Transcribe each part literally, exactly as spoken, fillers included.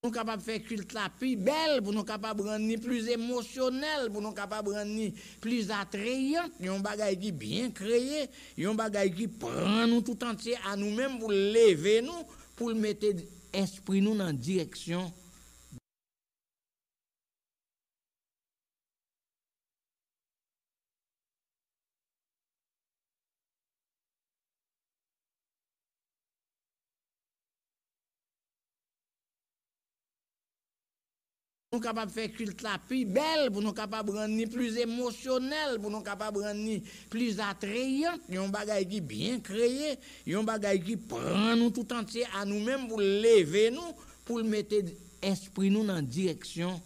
Nou kapab fè kilt la pi bèl, pou nou kapab rann li pli emosyonèl, pou nou kapab rann li pli atreyan, yon bagay ki byen kreye, yon bagay ki pran nou tout antye a nou menm pou l leve nou, pou l mete espri nou nan direksyon. Nou kapab fè kilt la pi bèl, pou nou kapab rann li pli emosyonèl, pou nou kapab rann li pli atreyan, yon bagay ki byen kreye, yon bagay ki pran nou tout antye a nou menm pou l leve nou, pou l mete espri nou nan direksyon.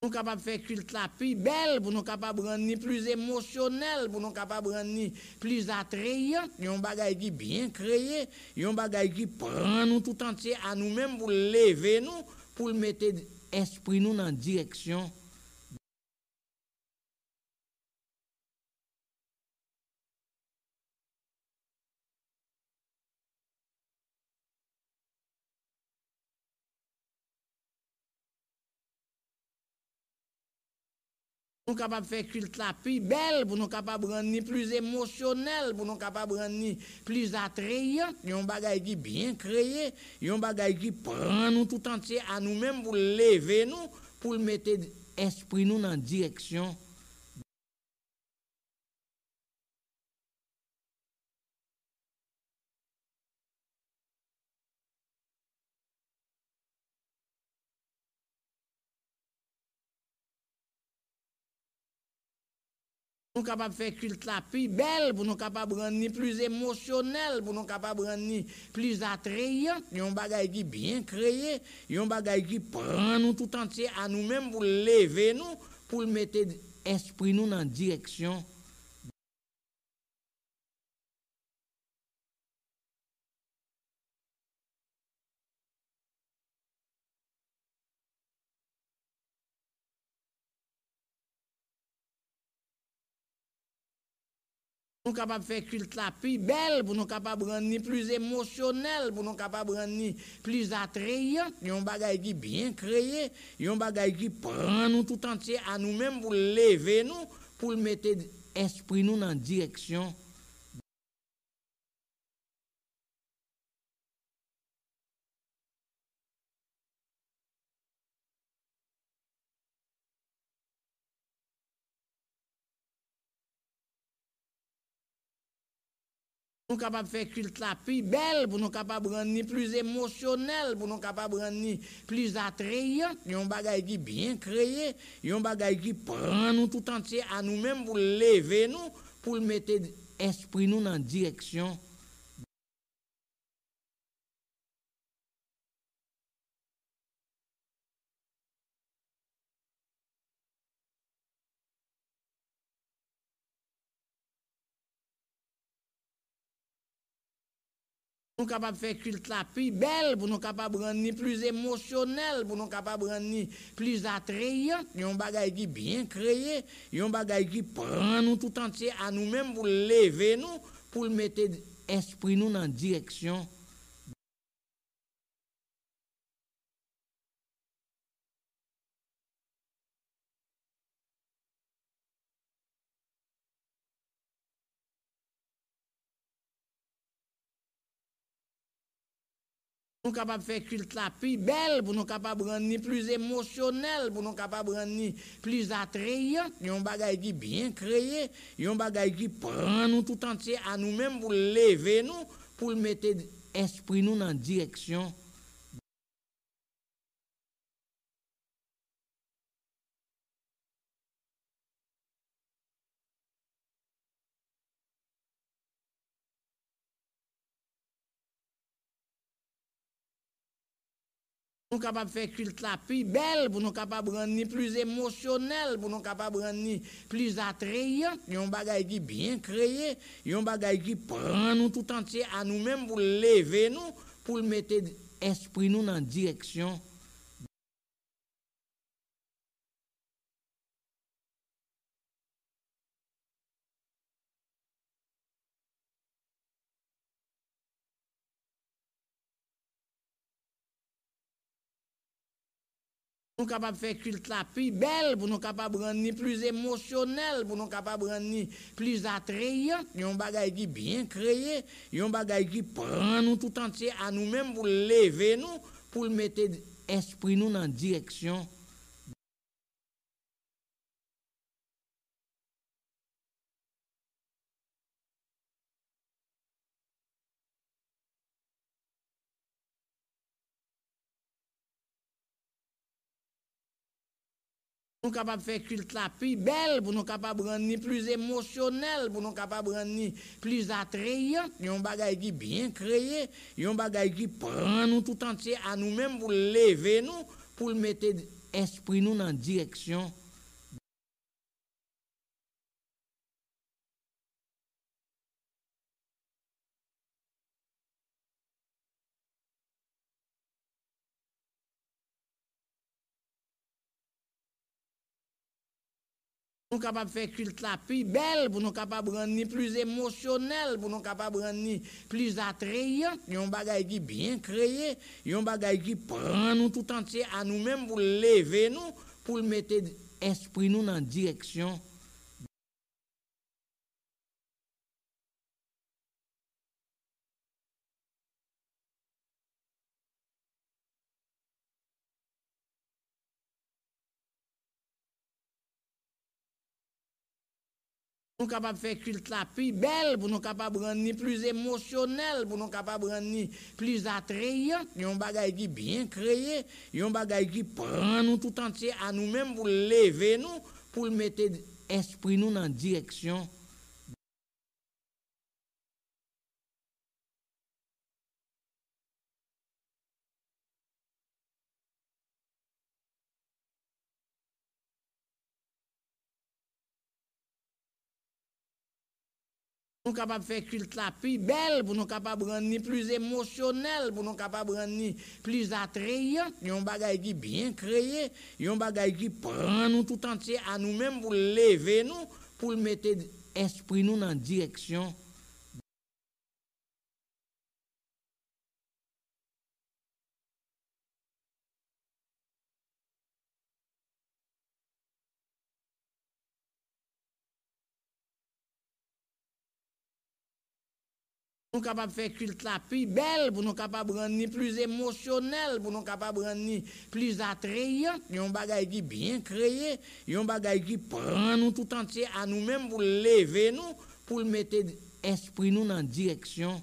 Nou kapab fè kilt la pi bèl, pou nou kapab rann li pli emosyonèl, pou nou kapab rann li pli atreyan, yon bagay ki byen kreye, yon bagay ki pran nou tout antye a nou menm pou l leve nou, pou l mete espri nou nan direksyon. Nou kapab fè kilt la pi bèl, pou nou kapab rann li pli emosyonèl, pou nou kapab rann li pli atreyan, yon bagay ki byen kreye, yon bagay ki pran nou tout antye a nou menm pou l leve nou, pou l mete espri nou nan direksyon. Nou kapab fè kilt la pi bèl, pou nou kapab rann li pli emosyonèl, pou nou kapab rann li pli atreyan, yon bagay ki byen kreye, yon bagay ki pran nou tout antye a nou menm pou l leve nou, pou l mete espri nou nan direksyon. Nou kapab fè kilt la pi bèl, pou nou kapab rann li pli emosyonèl, pou nou kapab rann li pli atreyan, yon bagay ki byen kreye, yon bagay ki pran nou tout antye a nou menm pou l leve nou, pou l mete espri nou nan direksyon. Nou kapab fè kilt la pi bèl, pou nou kapab rann li pli emosyonèl, pou nou kapab rann li pli atreyan, yon bagay ki byen kreye, yon bagay ki pran nou tout antye a nou menm pou l leve nou, pou l mete espri nou nan direksyon. Nou kapab fè kilt la pi bèl, pou nou kapab rann li pli emosyonèl, pou nou kapab rann li pli atreyan, yon bagay ki byen kreye, yon bagay ki pran nou tout antye a nou menm pou l leve nou, pou l mete espri nou nan direksyon. Nou kapab fè kilt la pi bèl, pou nou kapab rann li pli emosyonèl, pou nou kapab rann li pli atreyan, yon bagay ki byen kreye, yon bagay ki pran nou tout antye a nou menm pou l leve nou, pou l mete espri nou nan direksyon. Nou kapab fè kilt la pi bèl, pou nou kapab rann li pli emosyonèl, pou nou kapab rann li pli atreyan, yon bagay ki byen kreye, yon bagay ki pran nou tout antye a nou menm pou l leve nou, pou l mete espri nou nan direksyon Nou kapab fè kilt la pi bèl, pou nou kapab rann li pli emosyonèl, pou nou kapab rann li pli atreyan, yon bagay ki byen kreye, yon bagay ki pran nou tout antye a nou menm pou l leve nou, pou l mete espri nou nan direksyon Nou kapab fè kilt la pi bèl, pou nou kapab rann li pli emosyonèl, pou nou kapab rann li pli atreyan, yon bagay ki byen kreye, yon bagay ki pran nou tout antye a nou menm pou l leve nou, pou l mete espri nou nan direksyon Nou kapab fè kilt la pi bèl, pou nou kapab rann li pli emosyonèl, pou nou kapab rann li pli atreyan, yon bagay ki byen kreye, yon bagay ki pran nou tout antye a nou menm pou l leve nou, pou l mete espri nou nan direksyon Nou kapab fè kilt la pi bèl, pou nou kapab rann li pli emosyonèl, pou nou kapab rann li pli atreyan, yon bagay ki byen kreye, yon bagay ki pran nou tout antye a nou menm pou l leve nou, pou l mete espri nou nan direksyon Nou kapab fè kilt la pi bèl, pou nou kapab rann li pli emosyonèl, pou nou kapab rann li pli atreyan, yon bagay ki byen kreye, yon bagay ki pran nou tout antye a nou menm pou l leve nou, pou l mete espri nou nan direksyon Nou kapab fè kilt la pi bèl, pou nou kapab rann li pli emosyonèl, pou nou kapab rann li pli atreyan, yon bagay ki byen kreye, yon bagay ki pran nou tout antye a nou menm pou l leve nou, pou l mete espri nou nan direksyon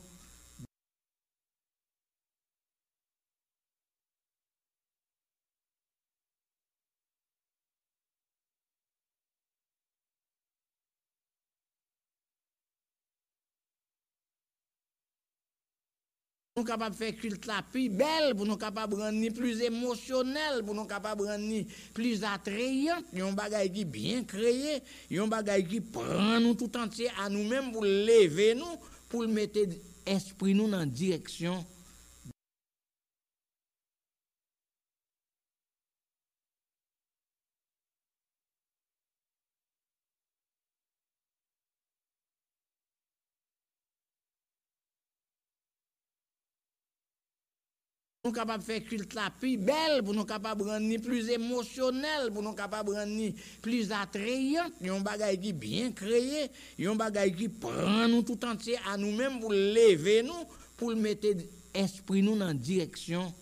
Nou kapab fè kilt la pi bèl, pou nou kapab rann li pli emosyonèl, pou nou kapab rann li pli atreyan, yon bagay ki byen kreye, yon bagay ki pran nou tout antye a nou menm pou l leve nou, pou l mete espri nou nan direksyon Nou kapab fè kilt la pi bèl, pou nou kapab rann li pli emosyonèl, pou nou kapab rann li pli atreyan, yon bagay ki byen kreye, yon bagay ki pran nou tout antye a nou menm pou l leve nou, pou l mete espri nou nan direksyon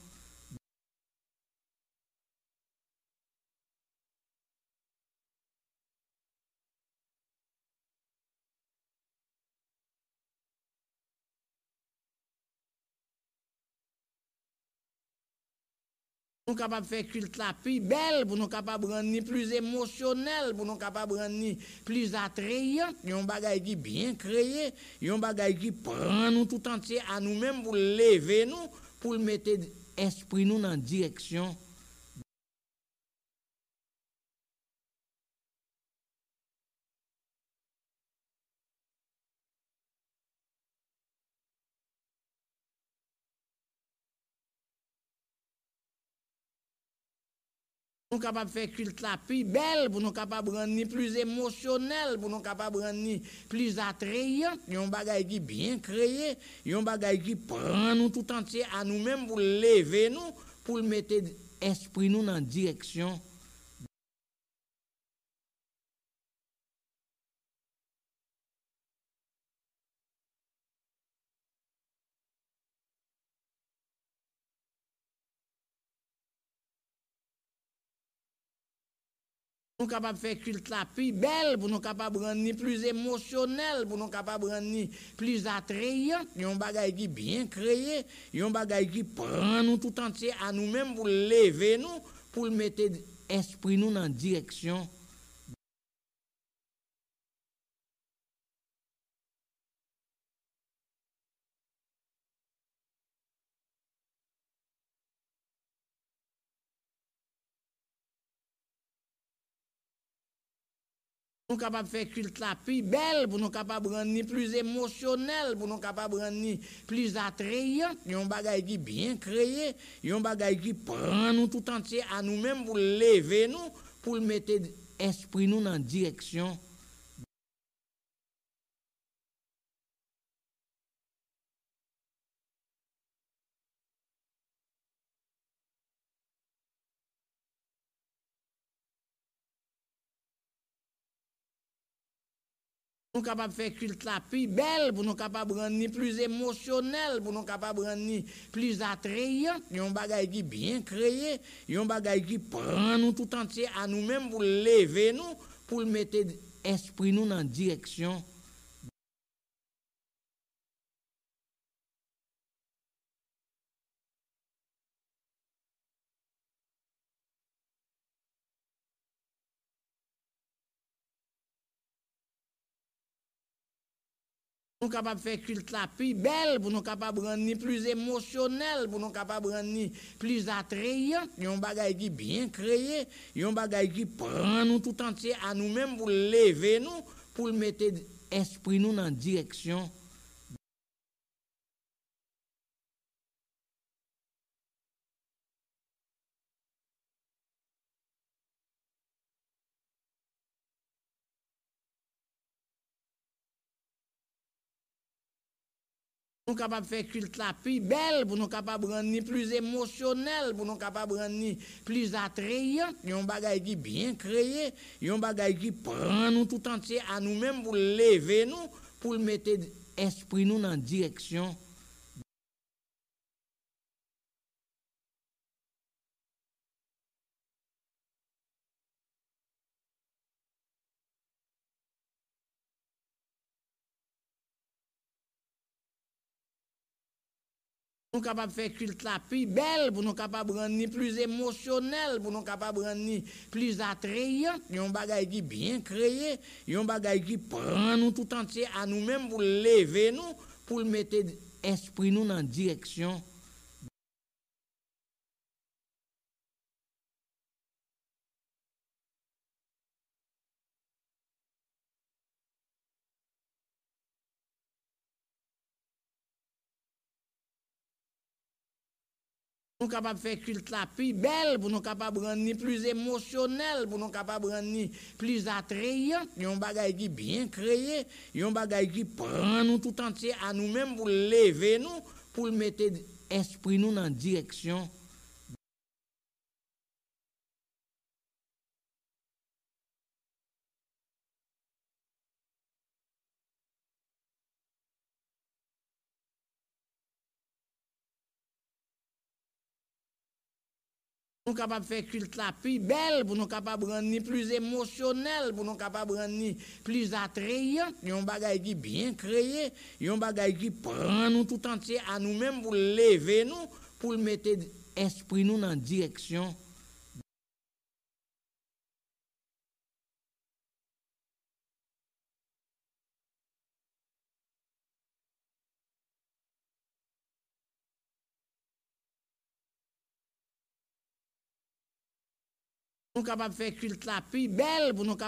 Nou kapab fè kilt la pi bèl, pou nou kapab rann li pli emosyonèl, pou nou kapab rann li pli atreyan, yon bagay ki byen kreye, yon bagay ki pran nou tout antye a nou menm pou l leve nou, pou l mete espri nou nan direksyon Nou kapab fè kilt la pi bèl, pou nou kapab rann li pli emosyonèl, pou nou kapab rann li pli atrayant, yon bagay ki byen kreye, yon bagay ki pran nou tout antye a nou menm pou l leve nou, pou l mete espri nou nan direksyon. Nou kapab fè kilt la pi bèl, pou nou kapab rann li pli emosyonèl, pou nou kapab rann li pli atrayant, yon bagay ki byen kreye, yon bagay ki pran nou tout antye a nou menm pou l leve nou, pou l mete espri nou nan direksyon. Nou kapab fè kilt la pi bèl, pou nou kapab rann li pli emosyonèl, pou nou kapab rann li pli atrayant, yon bagay ki byen kreye, yon bagay ki pran nou tout antye a nou menm pou l leve nou, pou l mete espri nou nan direksyon. Nou kapab fè kilt la pi bèl, pou nou kapab rann li pli emosyonèl, pou nou kapab rann li pli atrayant, yon bagay ki byen kreye, yon bagay ki pran nou tout antye a nou menm pou l leve nou, pou l mete espri nou nan direksyon. Nou kapab fè kilt la pi bèl, pou nou kapab rann li pli emosyonèl, pou nou kapab rann li pli atrayant, yon bagay ki byen kreye, yon bagay ki pran nou tout antye a nou menm pou l leve nou, pou l mete espri nou nan direksyon. Nou kapab fè kilt la pi bèl, pou nou kapab rann li pli emosyonèl, pou nou kapab rann li pli atrayant, yon bagay ki byen kreye, yon bagay ki pran nou tout antye a nou menm pou l leve nou, pou l mete espri nou nan direksyon. Nou kapab fè kilt la pi bèl, pou nou kapab rann li pli emosyonèl, pou nou kapab rann li pli atrayant, yon bagay ki byen kreye, yon bagay ki pran nou tout antye a nou menm pou l leve nou, pou l mete espri nou nan direksyon. Nou kapab fè kilt la pi bèl, pou nou kapab rann li pli emosyonèl, pou nou kapab rann li pli atrayant, yon bagay ki byen kreye, yon bagay ki pran nou tout antye a nou menm pou l leve nou, pou l mete espri nou nan direksyon. Nou kapab fè kilt la pi bèl, pou nou kapab rann li pli emosyonèl, pou nou kapab rann li pli atrayant, yon bagay ki byen kreye, yon bagay ki pran nou tout antye a nou menm pou l leve nou, pou l mete espri nou nan direksyon. Nou kapab fè kilt la pi bèl, pou nou